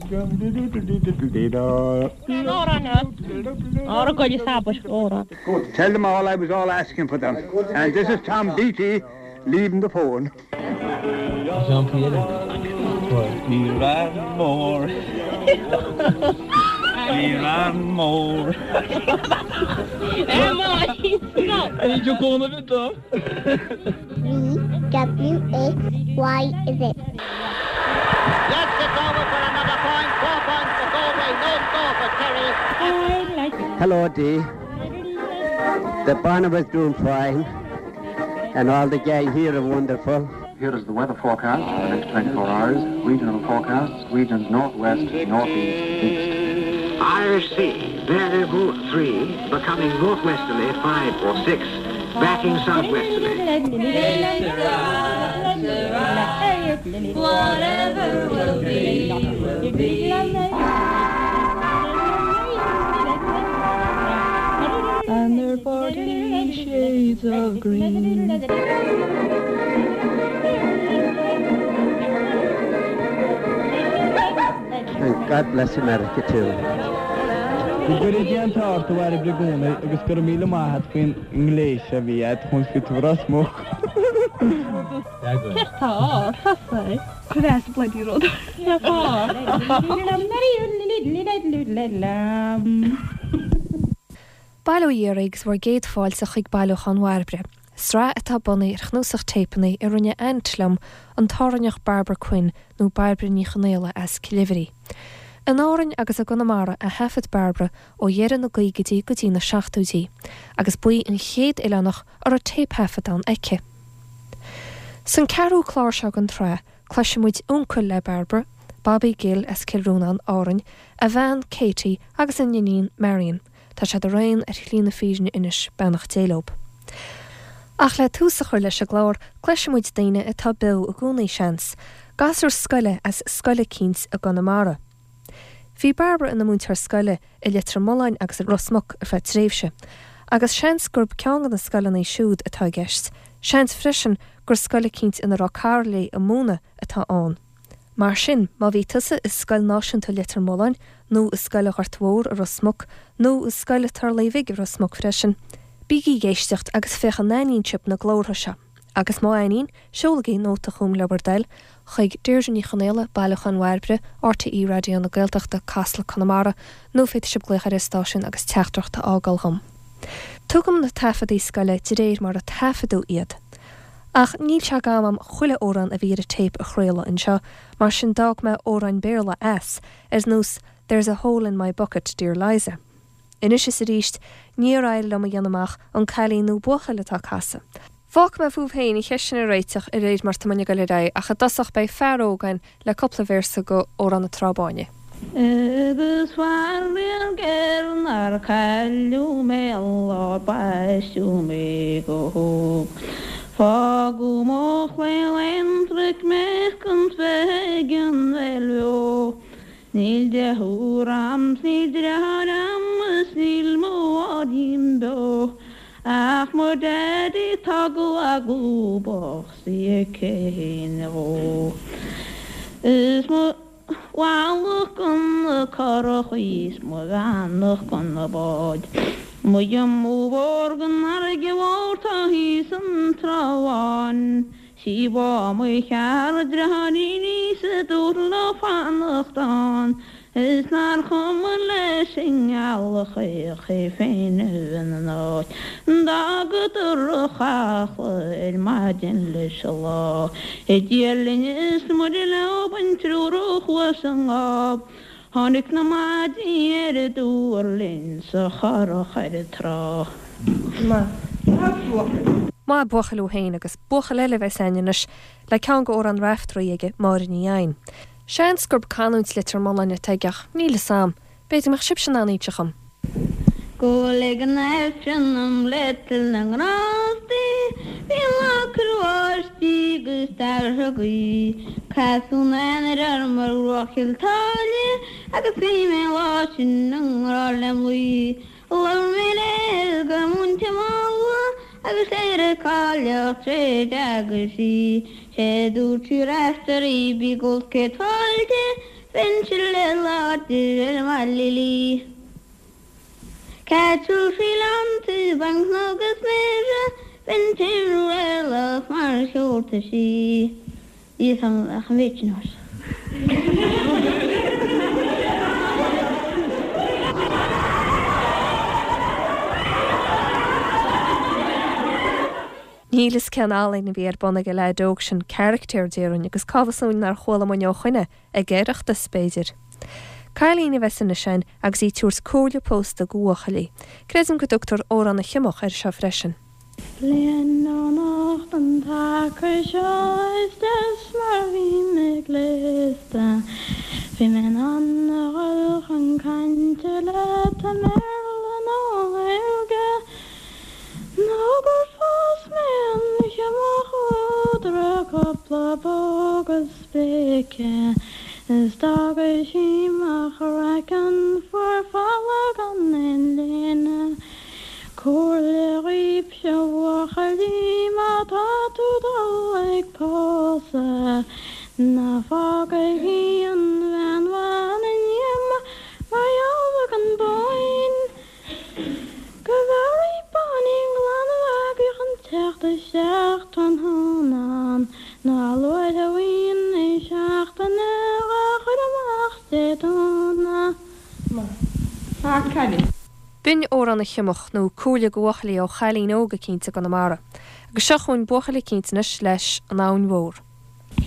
Tell them all I was all asking for them. And this is Tom Beattie leaving the phone. Ní raibh mór. Ní raibh mór. V W X Y Z. Yes, it's over for another point. 4 points for Galway, no score for Kerry. Hello, Dee. The Barnabas doing fine, and all the gang here are wonderful. Here is the weather forecast for the next 24 hours. Regional forecasts, regions northwest, northeast, east. Irish Sea, variable 3, becoming northwesterly 5 or 6, backing southwesterly. Whatever will be, will be. And they're 40 shades of green. And God bless America too. Go gcuire Dia an t-ádh ort a Bhairbre i gcónaí agus go raibh míle maith a't faoin ngléas a bhí a't chun fit Ros Muc. Céard tá thosaigh? Cuir as bloody rud. Bail ó Dhia oraibh agus bhur gcéad fáilte chuig Bailiúchán Bhairbre, sraith atá bunaithe ar chnuasach téipeanna a rinne aint liom, an tÁrainneach Barbara Quinn, nó Bairbre Ní Chonaola as Cill Oibhrí. In Árainn agus i gConamara a thaifead Barbara ó dheireadh na gcaogaidí go dtí na seachtóidí, agus ba í an chéad oileánach a raibh téipthaifeadán aici. San ceathrú clár seo den tsraith, cloisfidh muid uncail le Barbara, Bobby Gill as Cill Rónáin, Árainn, a bhean, Katie, agus a n-iníon, Marion. Tá siad araon ar shlí na fírinne anois, beannacht Dé leob. Ach le tús a chur leis an gclár, cloisfidh muid daoine atá beo i gcónaí, seans, gasúr scoile as scoil eicínt i gConamara. Bhí Barbara ina múinteoir scoile i Leitir Mealláin agus i Ros Muc ar feadh tréimhse, agus seans gurb ceann de na scoileanna siúd atá i gceist, seans freisin gur scoil eicínt ina raibh cara léi ag múineadh atá ann. Mar sin, má bhí tusa i Scoil Náisiúnta Leitir Mealláin, nó i Scoil an Ghoirt Mhór i Ros Muc, nó i Scoil an Turlaigh Bhig i Ros Muc freisin, bígí ag éisteacht agus féach an aithníonn sibh na glórtha seo. Agus má aithníonn, seolaigí nóta chugam le bhur dtoil, chuig Deirdre Ní Chonaola, Bailiúchán Bhairbre, RTÉ Raidió na Gaeltachta, Casla, Conamara, nó féadfaidh sibh glaoch ar an stáisiún agus teachtaireacht a fhágáil dhom. Tugaim na taifeadaí scoile de réir mar a taifeadadh iad. Ach níl sé d'am a'm chuile amhrán a bhí ar an téip a chraoladh anseo, mar sin d'fhág mé amhráin Béarla as, ar nós There's a hole in my bucket, dear Liza. Anois is arís, níor éirigh liom a dhéanamh amach an cailín nó buachaill atá ag casadh. Fágfaidh mé fúibh féin an cheist sin a réiteach de réir mar tá muinn ag dul ar aghaidh, ach i dtosach beidh fear óg againn le cúpla véarsa go Amhrán na Trá Báine. Agus faraor géar nár cailleadh mé an lá baisteadh mé go hóg. Fágadh mo chlaon aonraic mé chun bheith ag an bhféil bheo. Níl deirfiúr a'm 's níl deartháir a'm is níl mo mháithrín beo ach mo daddy tá go lúbach 's í ag caoineadh dhó. Is mo mhallacht go na curachaí 's mo bheannacht go na báid. Mo dhiomú mhór gon fharraige mhór tá thíos an Trá Bháin. Sí bá mo chear dreáiríní sa dúr le fanacht ann is nár chuma leis an ngealach chaoch é féin a bheith ina n-áit. D'fhágadar an chaiple ar maidin leis an lá. Dia linn is Muire leo an triúr a chuaigh sa ngáb. Tháinig na maidí ar an dtuar linn sa churach ar an trá. Maith buachaill thú féin agus buachaill eile a bheas againn anois le ceann go Amhrán Raiftearaí aige, Máire Ní Eidhin. Seans gurb canúint Leitir Mealláin atá aige ach níl fhios a'm. B'fhéidir go mbeadh sibhse in ann inse dhom. Go ag an Aifreann dom le toil na ngrástaí Bhí an lá ag cur báistí agus d'athrú gaoth Casadh an Eanáir orm ar bhruach Chill tSáile Agus bhí mé an lá sin i ngrá lem luí Labhair mé léi go múinte mall Agus léirigh cailleach tréad agus í Sé dúirt sí Raiftearaí bí ag gol céad fáilte. Bheinnse le láidir ar mo lilí. Cattle sí lánta banc agus mire, bheinn timthriallach mar sheolta sí. Níl 'fhios a'm ach an mhéid sin ort. Níl fhios cén ealaín a bhí ar bun ag an leaid óg sin, caractéir déarfainn, agus cá bhfios dúinn nár chuala muinn ó shoin é, ag Oireachtas, b'fhéidir. Cailín a bheas anois againn agus í ag tabhairt comhairle pósta go bhuachaillí. Creidim go dtugtar Amhrán na Siomach air seo freisin. Bliain ó anocht an taca seo is deas mar bhí mé gléasta Bhí mé in ann a dhul chun cainte leat i mBéarla nó Gaeilge Nó gur phós mé an siomach úd a raibh cúpla póg is spéice Is d'fhága sí mo chraiceann fuar folamh gan aon léine Comhairle dhaoibhse a bhuachaillí má tá tú dul ag pósadh Ná fágaigí an bhean mhaith ina ndíomá mar gheall ar an bpóigín Go bhfearaí báinín glan a mhagaidh chun teacht isteach tráthnóna Ná a luaithe a bhíonn í seachtaine dhá chur amach Dé Domhnaigh. B'in Amhrán na Siomach, nó Comhairle go Bhuachaillí ó chailín óg eicínt i gConamara. Agus seo chugainn buachaill eicínt anois leis An Abhainn Mhór.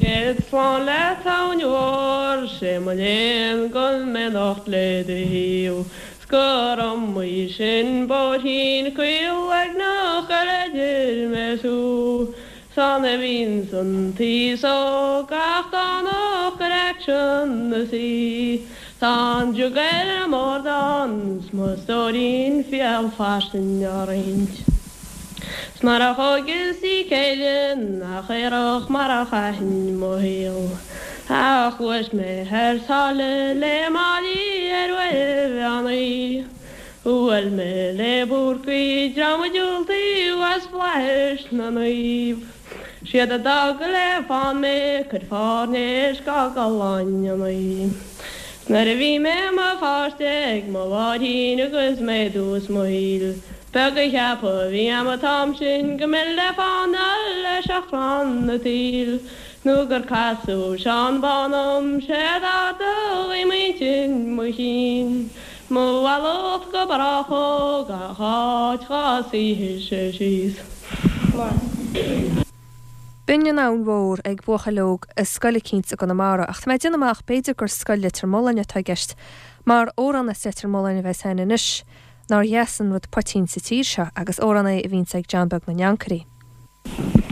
Céad slán leat abhainn mhór, sé mo léan go bhfuil mé anocht le do thaobh, 's gur iomaí sin bóithrín caol uaigneach ar idir mé 's thú. 'S ann a bhíonns an t-aos óg gach Domhnach ar aicsean na saoi. Tá an jug ar an mbord ann 's mo stóirín fial fairsing á roinnt. 'S mar a thóigeas í céile nach aerach mar a chaithfinn mo shaol. Ach ghluais mé thar sáile le Máillí ar uair mheán oí. Bhuail mé le Búrcaí dream a diúltaíodh as flaithis na naomh. Siad a d'fhág le fán mé cuid fairnéis go gcolainn. 'S nuair a bhí mé i mo pháiste ag mo mháithrín agus mé i dtús mo shaoil, Beag a cheapadh a bhí a'm an t-am sin go mbeinn le fánáil le seachrán an tsaoil nó gur casadh Seán Bán orm 'sé d'ardaigh m'intinn mo chinn mo mhallacht go brách ó gach áit dhá suífidh-se síos. B'in an Abhainn Mhór ag buachaill óg i scoil eicínt i gConamara, ach tá mé ag déanamh amach b'fhéidir gur scoil Leitir Mealláin atá i gceist, mar amhrán as Leitir Mealláin a bheas a'inn anois. Nár dheas an rud poitín sa tír seo agus amhrán é a bhíonns ag John Beag na nAncairí.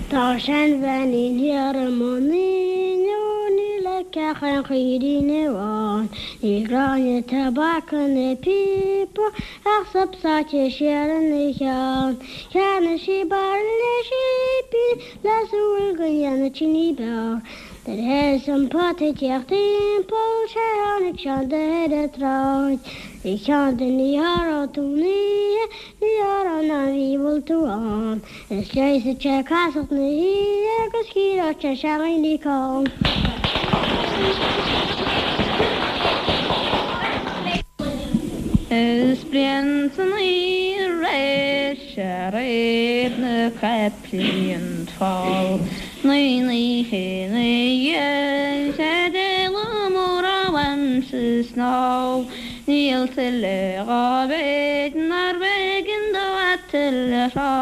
Tá seanbheainín thiar i mbun Fhinn ó níl aici ach aon chaoirín amháin. Níl gráinne tobac ina píopa ach sop sáite siar ina cheann. Cheannaigh sí bairille cipíní le súil go ndéanfadh sí ní b'fhearr. Nuair a thosaigh an pota ag tíocht timpeall sé tháinig Seán de ar an tsráid. A Sheáin ní tharraing tú an oíche, ní tharraing an mhí bhfuil tú ann. Is leigheasfaidh sé casacht na hoíche agus cíoróidh sé seandaoine call. Is bliain san oíche aréir sé réab na caiplí an fál naoi n-oíche ina dhiaidh sé d'éala mór uaimse snámh níl tuilleadh dhá mhéid nárbh éigean dó a tuilleadh rá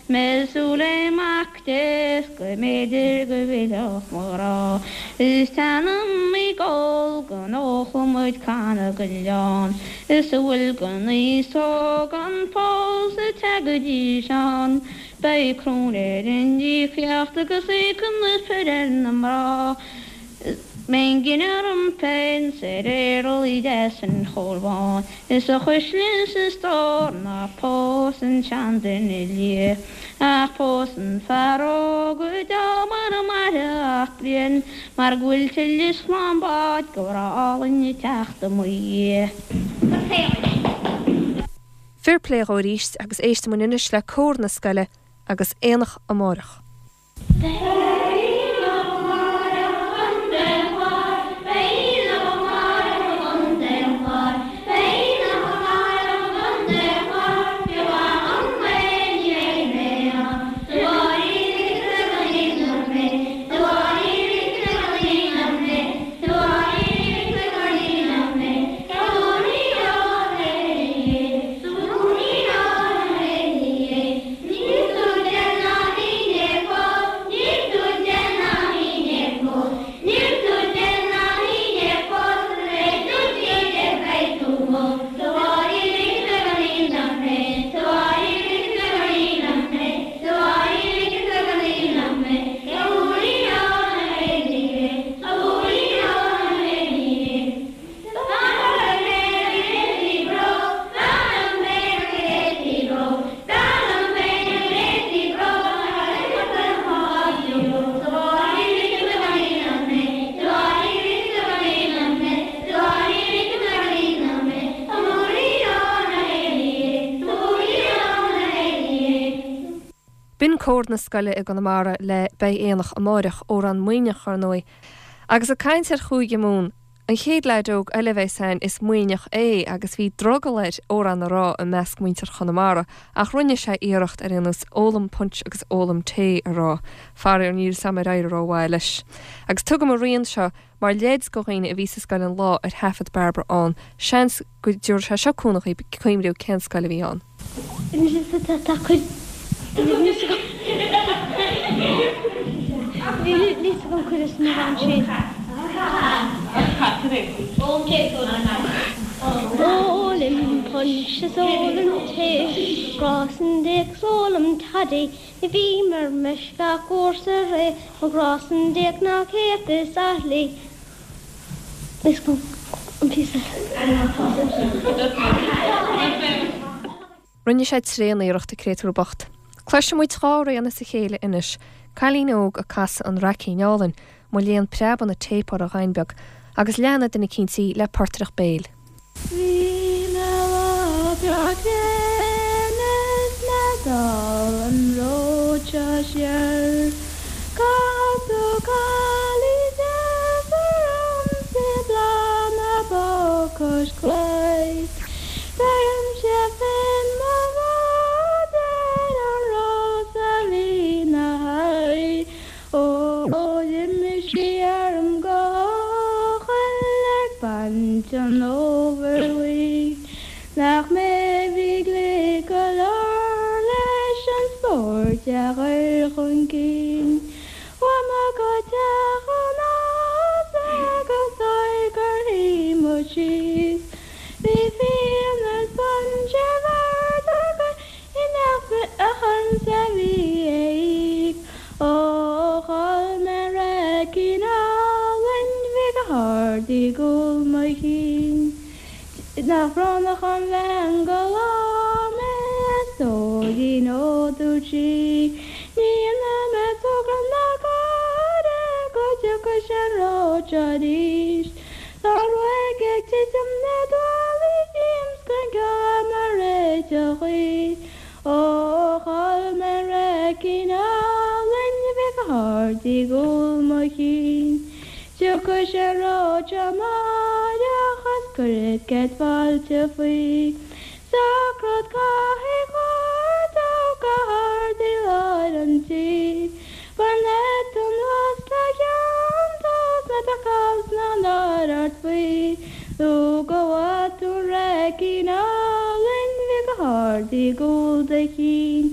mé súil le mac Dé 's go mb'fhéidir go bhfillfeadh mo ghrá Is teannam ag ól go n-ólfadh muid canna den leann Is a bhfuil den aos óg ann fós ag teagaidís ann Beidh cruinn ar an íocaíocht agus íocann na fir ar na mná Is mbeidh an gine orm féin 's ar éarlaí deas an Chóil Bháin Is a chuisle is a stór ná pós an seanduine liath Ach pós an fear óg go deo mara mairfidh ach bliain Mar go bhfuil tuilleadh slán báid go bhreá álainn ag teacht i mo dhiaidh. Fair plé dhó arís agus éistfidh muid anois le cór na scoile agus Aonach Amárach. Beidh aonach amárach an Chláir, beidh aonach amárach. B'in cór na scoile i gConamara le Beidh Aonach Amáireach, amhrán Muimhneach ar ndóigh. Agus ag caint ar Chúige Mumhan, an chéad leaid óg eile a bheas againn is Muimhneach é agus bhí drogall air amhrán a rá i measc muintir Chonamara ach rinne sé iarracht ar aon nós Ólaim Punch agus Ólaim Tae a rá. Faraor níl 'fhios a'm ar éirigh rómhaith leis. Agus tugaim an rian seo mar leid go dhaoine a bhí sa scoil an lá ar thaifead Bairbre ann, seans go dtabharfaidh sé seo cúnamh dhaoib cuimhniú cén scoil a bhí ann. Ólaim punch is ólaim tae, grá san déag 's ólaim toddy, Ní bhím ar meisce ach uair sa ré, mo ghrá san déag ná 100 is athlaí. Rinne sé tréan-iarracht, a créatúr bocht. Cloisfidh muid dá rian as a chéile anois, cailín óg ag casadh An Raicín Álainn, mo léan preabann an téip orthu a ghain beag, agus leanfaidh duine eicínt í le portaireacht béil. Bhí mé lá breá gréine is mé ag dul an ród seo siar. Casadh cailín deas ormsa i bláth na bó cois claí. Bheirimse féin mo bhád ar an rós a bhí 'na haghaidh. Ó d'imigh sí orm go heochaill ag baint an fhómhair bhuí. Nach mé a bhí glic go leor leis an spórt a chur chun cinn. Chuaigh mé go teach an fhása agus óir gur shuigh muid síos. Bhí fíon is punch ar bord againn. I nach ormsa a bhí a íoc. Ó chol mé an raicín álainn bhí go hard i gcúl mo chinn. Nach brónach an bhean go labhair mé a stóirín ó dúirt sí ní dhéanfaidh mé togra ná gáire go dtiocfaidh sé an ród seo arís. Tá an ruaig ag titim na dtuaillí díom 's gan ceol mar réiteach í. Ó chol mé an raicín álainn a bhí go hard i gcúl mo chinn. Tiocfaidh sé an ród seo amáireach is cuirfead céad fáilte faoi. Socród cathaoir chóir dó go hard i lár an tí. Bainfead tú anuas le ceann tú 's ná beadh cás ná náire ort faoi nó go bhfaighe tú an raicín álainn bhí go hard i gcúl do chinn.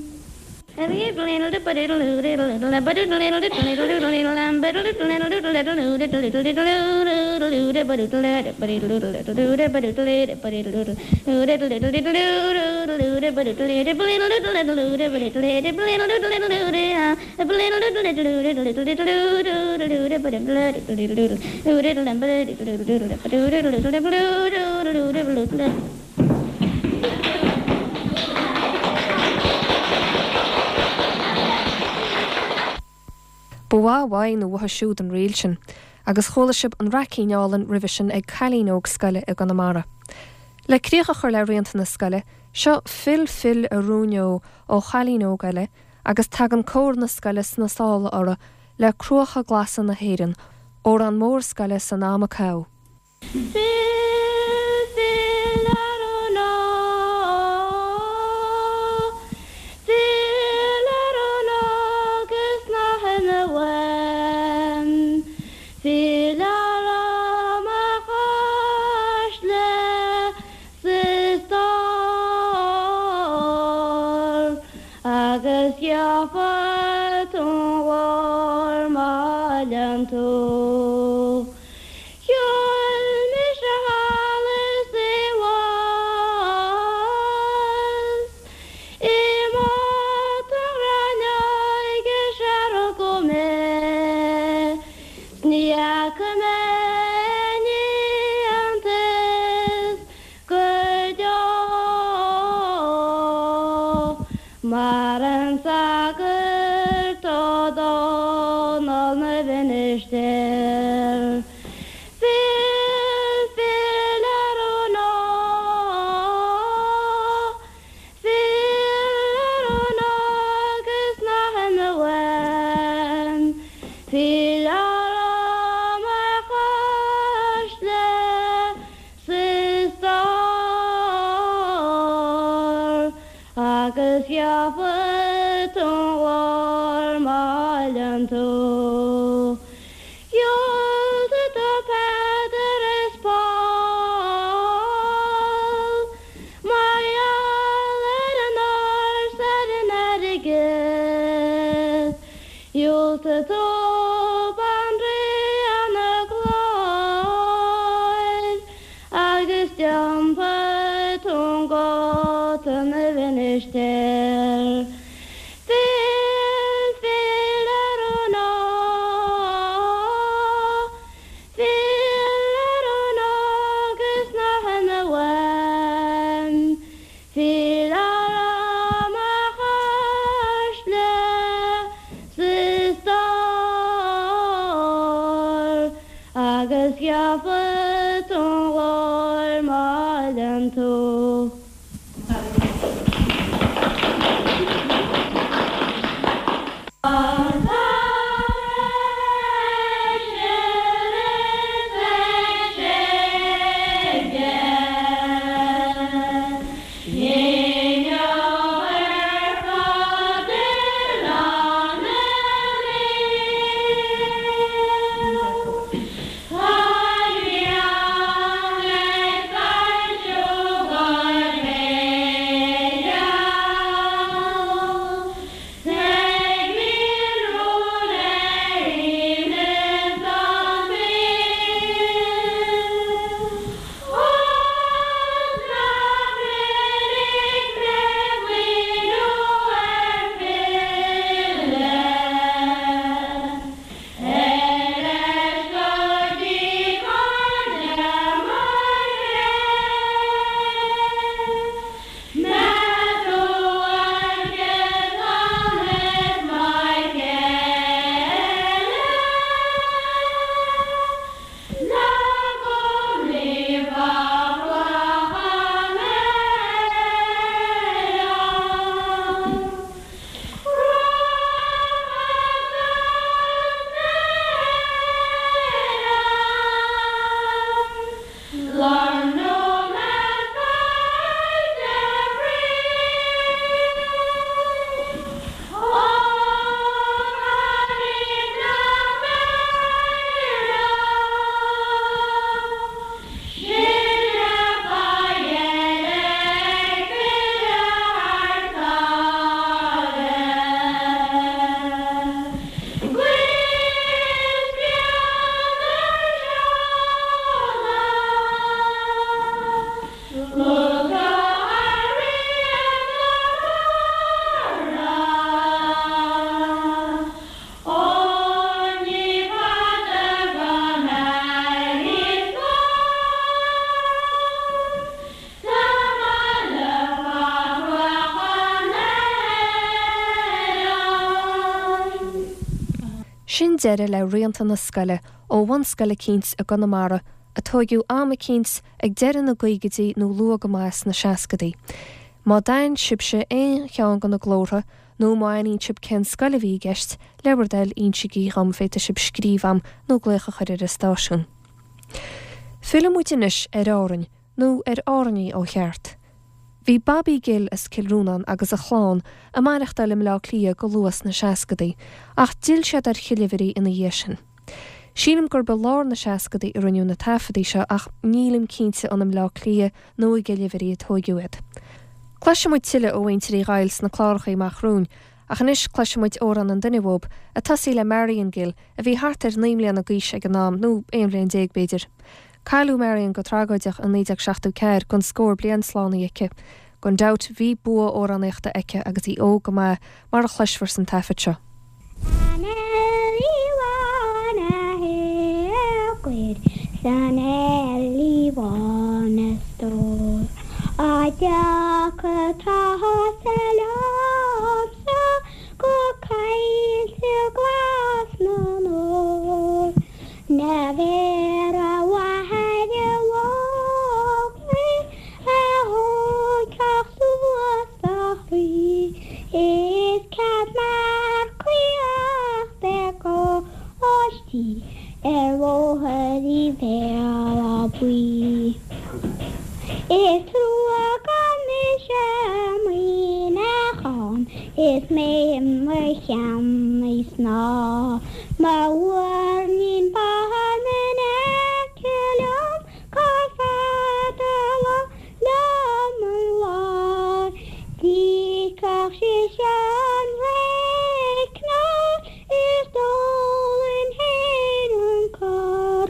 Ba mhaith uaidh nó uathu siúd an ríl sin, agus chuala sibh an Raicín Álainn roimhe sin ag cailín óg scoile i gConamara. Le críoch a chur le rianta na scoile, seo Fill Fill a Rúin Ó ó chailín óg eile, agus tagann cór na scoile sna sála orthu le Cruacha Glasa na hÉireann, amhrán mór scoile san am a caitheadh. Fill, fill ar an ó, fill ar an agus ná himigh uaim, fill ar mo chois le 's stór agus gheobhaidh tú an ghlór má fhilleann tú. Shiúil mise. Agus gheobhaidh tú an ghlóir má fhilleann tú. Sin deireadh le Rianta na Scoile ó bhunscoil eicínt i gConamara a tóigeadh am eicínt ag deireadh na gcaogaidí nó luath go maith sna seascadaí. Má d'aithin sibhse aon cheann de na glórtha nó má aithníonn sibh cén scoil a bhí i gceist, le bhur dtoil insigí dhom, féadfaidh sibh scríobh a'm nó glaoch a chur ar an stáisiún. Fillfidh muid anois ar Árainn, nó ar Árainní ó cheart. Bhí Bobby Gill as Cill Rónáin agus a chlann ag maireachtáil i mBleá Cliath go luath sna seascadaí, ach d'fhill siad ar Chill Uimhrí ina dhiaidh sin. Sílim gurb i lár na seascadaí a rinneadh na taifeadaí seo ach nílim cinnte an i mBleá Cliath nó i gCill Uimhrí a tóigeadh iad. Cloisfidh muid tuilleadh ó mhuintir Uí Dhaill sna cláracha amach romhainn, ach anois cloisfidh muid amhrán an duine uathub, ag tosaí le Marion Gill, a bhí thart ar 9 mbliana d'aois ag an am, nó 11 bhliain b'fhéidir. Cailleadh Marion go tragóideach i 1974 gan scór bliain slánaithe aici. Gan dabht bhí bua amhránaíochta aici agus í óg go maith, mar a chloisfear san taifead seo. San Eilí Bhán a thiocfaidh, san Eilí Bhán a stór, A dtiocfaidh tusa liomsa go coillte glas na nÓr. N'fheadar a mháthair bhocht mé a thógfadh suas do chroí Is cead marcaíocht ar gcóistí ar bhóthar Uí Bhéal Átha Buí. Is trua gan mise i Muineachán is mé i mo cheannaí snáth Mo mhuirnín bán in aice liom Gur fada liom an lá D'íocfadh sise an réicneáil Is d'ólfainn féin an cur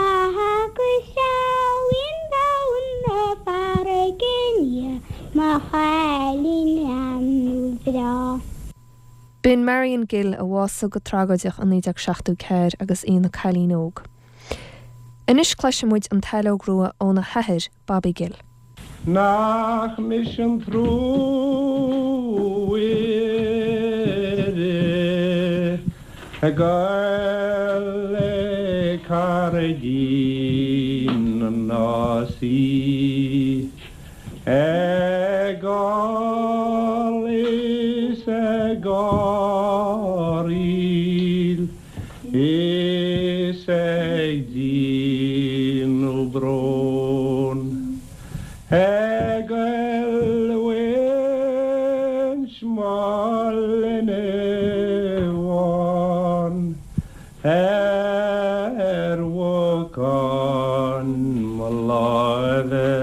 Agus shamhlaím domhan na farraige i ndiaidh mo chailín fhearúil bhreá. B'in Marion Gill a bhásaigh go tragóideach i 1974 agus í ina cailín óg. Anois cloisfidh muid an tSaileog Rua óna hathair, Bobby Gill. Nach mise an truaire ag goil ag carraig. ghairdín na nÁsaí. Ag gol is ag gáiríl is ag déanamh bróin. Ag goilliúint mo linbh bháin ar bhocán mo láimhe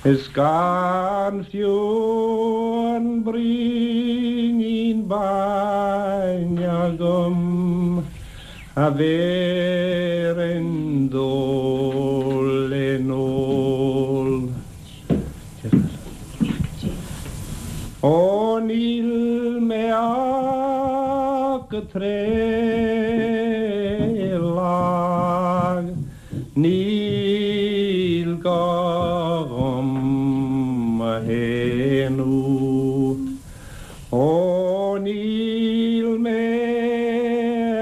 is gan fiú an braoinín bainne agam a bhéarfainn dó le n-ól. Ó níl mé ach go tréith lag, níl gá dhom mo shéanadh. Ó níl mé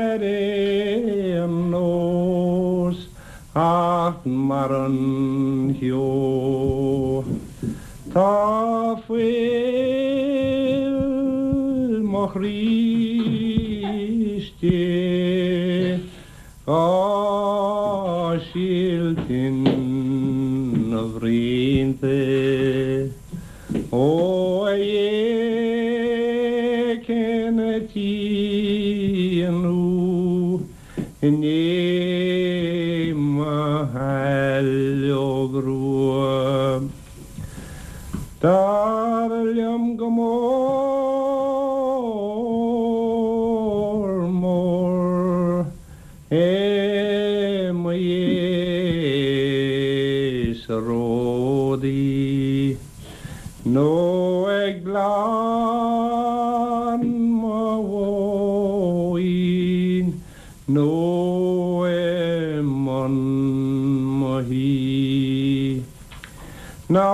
ar aon nós ach mar an cheo. Tá fuil mo chroí istigh dhá silt ina bhroinnte. Ó a Dhé cén tslí i ndiaidh mo shaileog rua. Dar liom go mór mór é mo Dhé sa ródaí nó ag gleann mo mhóin nó i mbun mo thí. Ná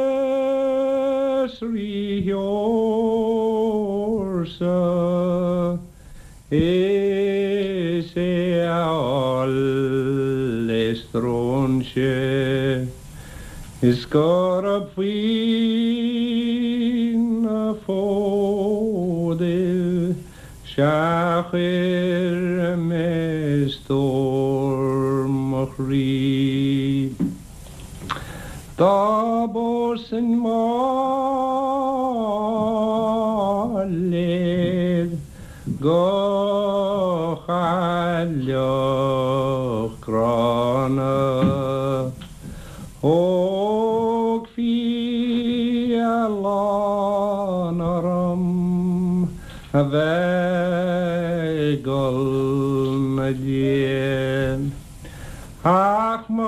saibhreas rídheorsa is é a fháil le stróinse is gurab faoi na fódaibh 'sea chuir mé stór mo chroí. Dá bpósfainn Máiléad go chailleach gránna, Thógfaí a lán orm a bheith ag gol 'na diaidh. Ach mo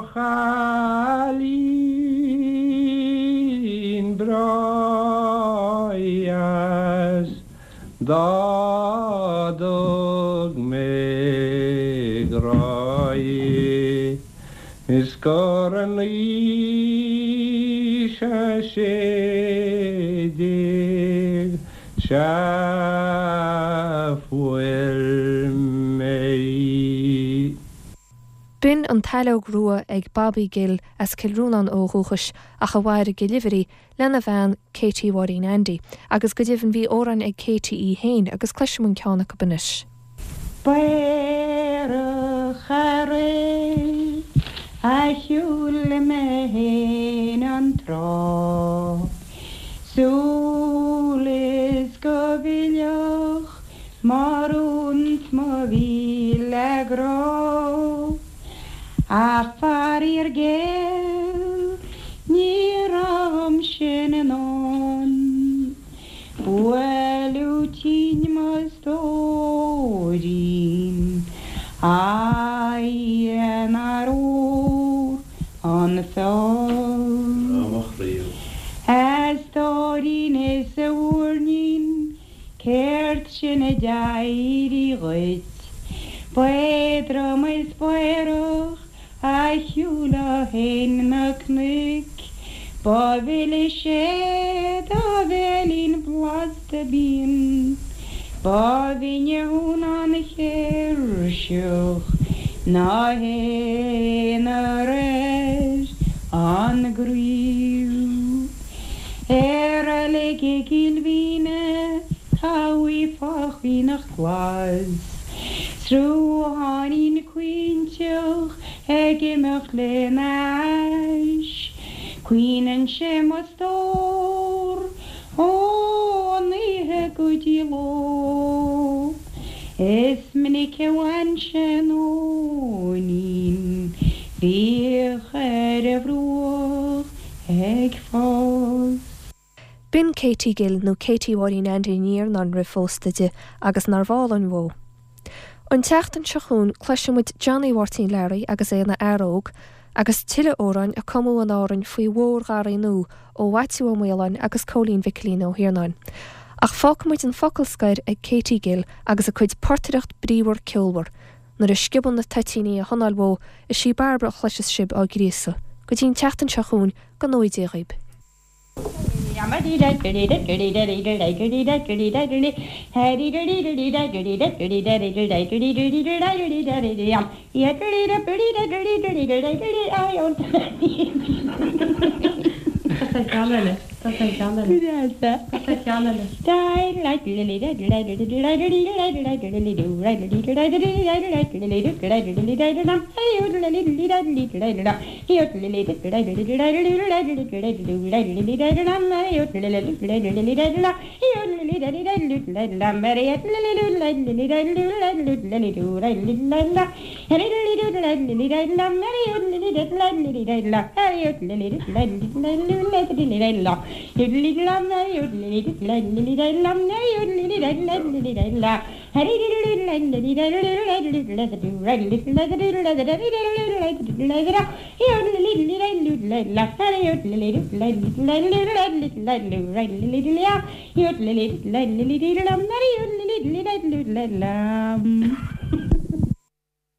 chailín breá dheas dá dtug mé grá dhi is gur in aois a 16 sea fuair mé í. B'in An tSaileog Rua ag Bobby Gill as Cill Rónáin ó dhúchais ach a mhair i gCill Uimhrí lena bhean Katie Mháirín Andy. Agus go deimhin bhí amhráin ag Katie í féin agus cloisfidh muid ceann acu anois. B'aerach aréir a shiúil mé fhéin an trá, Sul is go bhfillfeadh m'urraon 's mo mhíle grá. Ach faraor géar ní raibh dhom sin i ndán, Buaileadh tinn mo stóirín, a Dhia nár fhuar an feoil. A stóirín is a mhúirnín, Céard sin a d'éirigh dhuit? B'éadrom is b'aerach a shiúlfá fhéin na cnoic, Ba mhilise do bhéilín blasta binn. Ba bhinne thú ná an chéirseach ná haon ar an gcraobh. I reilig i gCill Mhíne tá uaigh fá chaonach glas, Srutháinín caointeach ag imeacht lena ais, Caoineann sé mo stór ón oíche go dtí ló. Is minic a bhain sé an nóinín bhíodh ar a bhruach ag fás. B'in Katie Gill, nó Katie Mháirín Aindí Ní Iarnáin roimh phósta di, agus nárbh álainn uó. An tseachtain seo chugainn cloisfidh muid Johnny Mháirtín Learaí agus é ina fhear óg, agus tuilleadh amhráin a cumadh in Árainn faoi mhór-gharraí nua ó Mhaitiú Ó Maoláin agus Cóilín Mhicilín Ó hIarnáin. Ach fágfaidh muid an focal scoir ag Katie Gill agus a cuid portaireacht bríomhar ceolmhar. Nuair a sciobann na toitíní a hanáil uó, is í Bairbre a chloiseas sibh á gríosadh. Go dtí an tseachtain seo chugainn, go ngnóthaí Dia dhaoib.